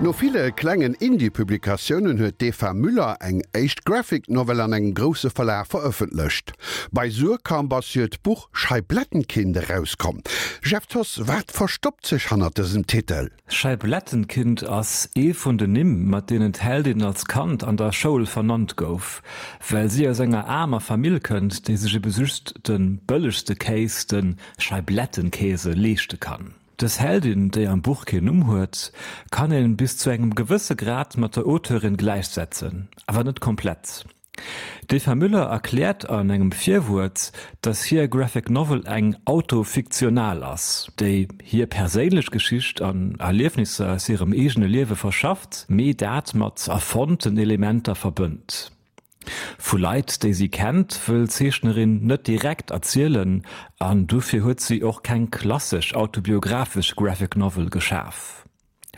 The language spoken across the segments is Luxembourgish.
No ville klengen Indie-Publikatiounen huet d'Eva Müller eng éischt Graphic Novel an engem grousse Verlag verëffentlecht. Bei Suhrkamp ass hiert Buch Scheiblettenkind erauskomm. Jeff Thoss, wat verstoppt sech hannert dësem Titel? Scheiblettenkind ass ee vun den Nimm, mat deenen d'Heldin als Kand an der Schoul vernannt gouf, well si aus enger aarmer Famill kënnt, déi sech ebe just de bëllegste Kéis, de Scheiblettenkäse, leeschte kann. Dës Heldin, déi am Buch keen Numm huet, kann een bis zu engem gewësse Grad mat der Auteurin gläichsetzen, awer net komplett. D'Eva Müller erkläert an engem Virwuert, dass hir Graphic Novel eng autofiktional ass, déi hir perséinlech Geschicht an Erliefnisser aus hirem eegene Liewe verschafft, mee dat mat erfonnten Elementer verbënnt. Vu Leit, déi si kennt, wëll d'Zeechnerin net direkt erzielen an dofir huet si och keng klassesch autobiographesch Graphic Novel geschaf.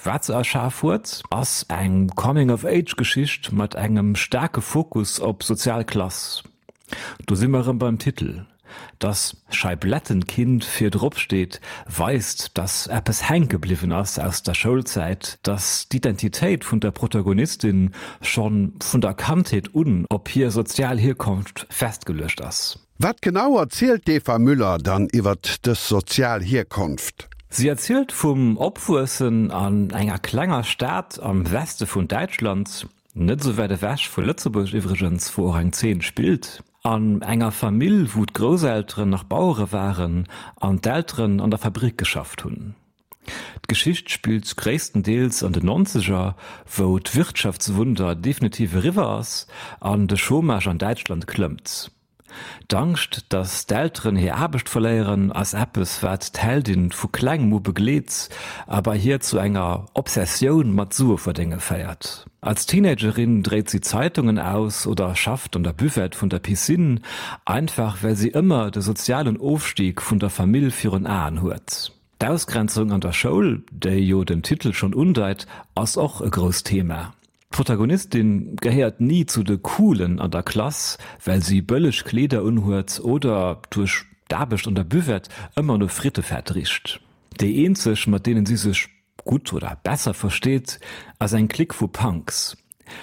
Wat se erschaf huet, ass eng Coming-of-Age-Geschicht mat engem staarke Fokus op sozial Klass. Do si mer erëm beim Titel. Dass Scheiblettenkind vir drop steet, weist, dass eppes hänke bliwwen ass aus der Schoulzäit, dass d'Identitéit vun der Protagonistin schonn vun der Kandheet un op hir sozial Hierkonft festgeluecht ass. Wat genau erzielt d'Eva Müller dann iwwert dës sozial Hierkonft? Si erzielt vum Opwuessen an enger klenger Stad am Weste vun Däitschland, net esou wäit ewech vu Lëtzebuerg iwwregens, wou och eng Zeen spillt. An enger Famill, wou d'Grousselteren nach Bauere waren an d'Elteren an der Fabrick geschafft hunn. D'Geschicht spillt gréisstendeels an den Nonzeger, wou d'Wirtschaftswunder definitiv eriwwer ass an de Chômage an Däitschland klëmmt. D'Angscht, datt d'Elteren hir Aarbecht verléieren, ass eppes, wat d'Heldin vu klengem u begleet a bei hir zu enger Obsessioun mat Sueverdénge féiert. Als Teenagerin dréit si Zeitungen aus oder schafft an der Buvette vun der Piscine, einfach well si ëmmer de sozialen Ofstig vun der Famill virun Aen huet. D'Ausgrenzung an der Schoul, déi jo den Titel schonn undeit, ass och e grousst Thema. D'Protagonistin gehéiert ni zu de Coolen an der Klass, well si bëlleg Kleeder unhuet oder duerch d'Aarbecht an der Buvette ëmmer no Frittefett richt. Déi eenzeg, mat deenen si sech gutt oder besser versteet, ass eng Clique vu Punks.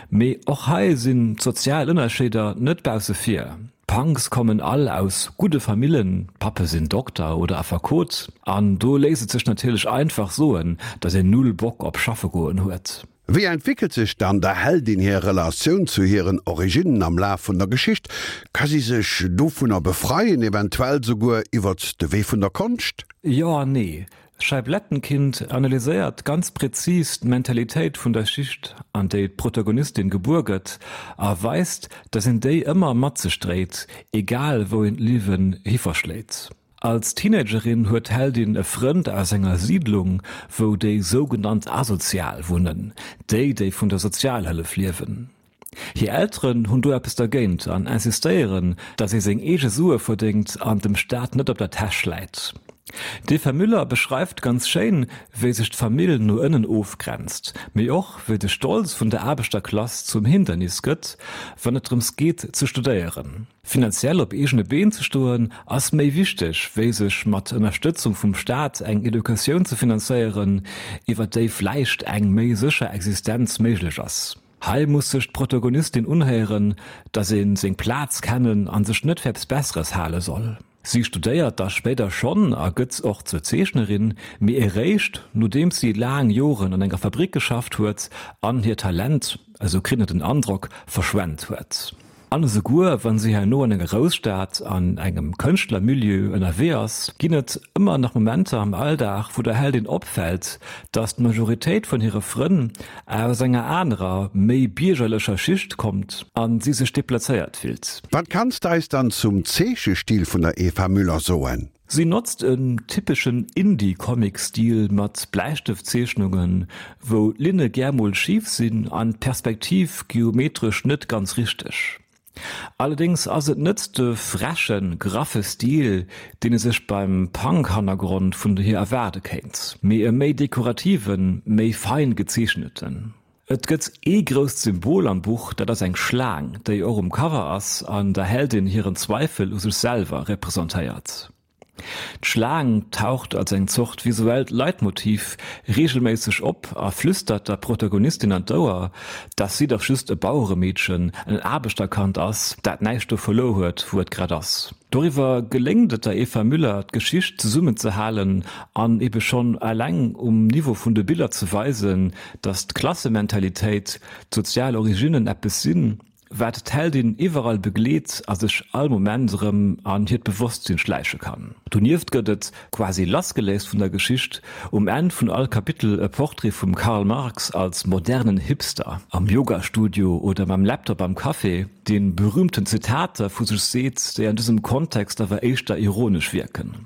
Mee och hei sinn d'sozial Ënnerscheeder net bausse vir. D'Punks kommen all aus gudde Famillen, d'Pappe sinn Dokter oder Affekot, an do léisst et sech natierlech einfach soen, datt een null Bock op schaffe goen huet. Wéi entwéckelt sech dann der Heldin hir Relatioun zu hiren Originnen am Laf vun der Geschicht? Ka si sech dovunner befreien, eventuell souguer iwwert de Wee vun der Konscht? Jo an nee. Scheiblettenkind analyséiert ganz präzis d'Mentalitéit vun der Schicht, an déi d'Protagonistin gebuer gëtt, a weist, dass een déi ëmmer mat sech dréit, egal wou een d'Liewen hi verschléit. Als Teenagerin huet d'Heldin e Frënd aus enger Siidlung, wou déi sougenannt Asozial wunnen, déi, déi vun der Sozialhëllef liewen. Hir Elteren hunn do eppes dergéint an insistéieren, datt ee seng eege Sue verdéngt an dem Staat net op der Täsch läit. D'Eva Müller beschreift ganz schéin, wéi sech d'Famill no ënnen ofgrenzt, mee och wéi de Stolz vun der Aarbechterklass zum Hindernis gëtt, wann et drëms geet ze studéieren. Finanziell op eegene Been ze stoen ass méi wichteg, wéi sech mat Ënnerstëtzung vum Staat eng Educatioun ze finanzéieren, iwwer déi vläicht eng méi sécher Existenz méiglech ass. Hei muss sech d'Protagonistin unhéieren, dass ee seng Plaz kennen a sech net fir eppes Besseres hale soll. Si studéiert da spéider schonn a gëtt och zur Zeechnerin, mee eréischt nodeems si laang Joren an enger Fabrick geschafft huet an hiert Talent, esou kritt een den Androck, verschwent huet. An esouguer wann si herno an enger Grousstad an engem Kënschtlermilieu ënnerwee ass, ginn et ëmmer nach Momenter am Alldag, wou der Heldin opfält, dass d'Majoritéit vun hire Frënn aus enger anerer, méi biergerlecher Schicht kommt a si sech deplazéiert fillt. Wat kanns de eis dann zum Zeechestil vun der Eva Müller soen? Si notzt en typeschen Indie-Comic-Stil mat Bläistëftzeechnungen, wou d'Linne gär mol schif sinn an d'Perspektiv geometresch net ganz richteg. Allerdéngs ass et net de frechen, graffe Stil, deen ee sech beim Punk-Hannergrond vun hir erwaarde kéint, mee e méi dekorativen, méi fein gezeechneten. Et gëtt ee grousst Symbol am Buch, dat ass eng Schlaang, déi och um Cover ass an der Heldin hiren Zweifel u sech selwer representéiert. D'Schlaang taucht als eng Zort visuellt Leitmotiv reegelméisseg op a flüstert der Protagonistin an d'Ouer, dass si dach just e Baueremeedchen, en Aarbechterkand ass, dat näischt do verluer huet, wou et grad ass. Doriwwer geléngt et der Eva Müller, d'Geschicht zesummenzehalen an ebe schonn eleng um Niveau vun de Biller ze weisen, dass d'Klassementalitéit, d'sozial Originnen eppes sinn, wat d'Heldin iwwerall begleet a sech all Moment erëm an hiert Bewosstsinn schläiche kann. Donieft gëtt et, quasi lassgeléist vun der Geschicht, um Enn vun all Kapitel e Portrait vum Karl Marx als modernen Hipster am Yoga-Studio oder mam Laptop am Café, dee berühmten Zitater vu sech seet, déi an dësem Kontext awer éischter ironesch wierken.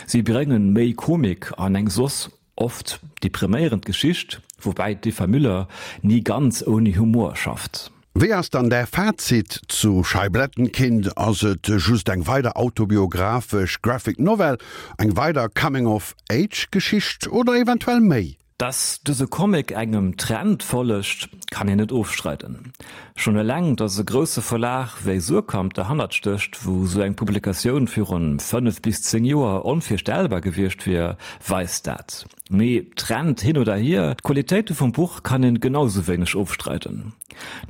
Si bréngen méi Komik an eng soss oft depriméierend Geschicht, woubäi d'Eva Müller ni ganz ouni Humor schafft. Wéi ass dann däi Fazit zu Scheiblettenkind? Ass et just eng weider autobiographesch Graphic Novel, eng weider Coming of Age Geschicht oder eventuell méi? Dass dëse Comic engem Trend follegt, kann een net ofstreiden. Schonn eleng, dass e grousse Verlag wéi Suhrkamp derhannert stécht, wou sou eng Publikatioun virun 5 bis 10 Joer onvirstellbar gewiescht wier, weist dat. Mee Trend hin oder hier, d'Qualitéite vum Buch kann een genau sou wéineg ofstreiden.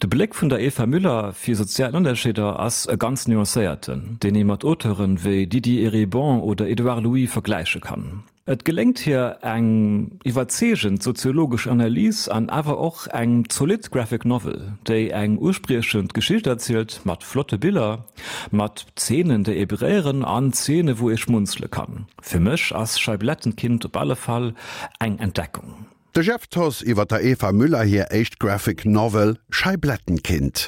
De Bléck vun der Eva Müller fir sozial Ënnerscheeder ass e ganz nuancéierten, deen ee mat Auteuren wéi Didier Eribon oder Edouard Louis vergläiche kann. Et geléngt hir eng iwwerzeegend soziologesch Analys an awer och eng zolidd Graphic Novel, déi eng uspriechend Geschicht erzielt, mat flotte Biller, mat Zeenen, déi ee beréieren an Zeene wou ee schmunzele kann. Fir mech ass Scheiblettenkind op alle Fall eng Entdeckung. De Jeff Thoss iwwer der Eva Müller hir éischt Graphic Novel Scheiblettenkind.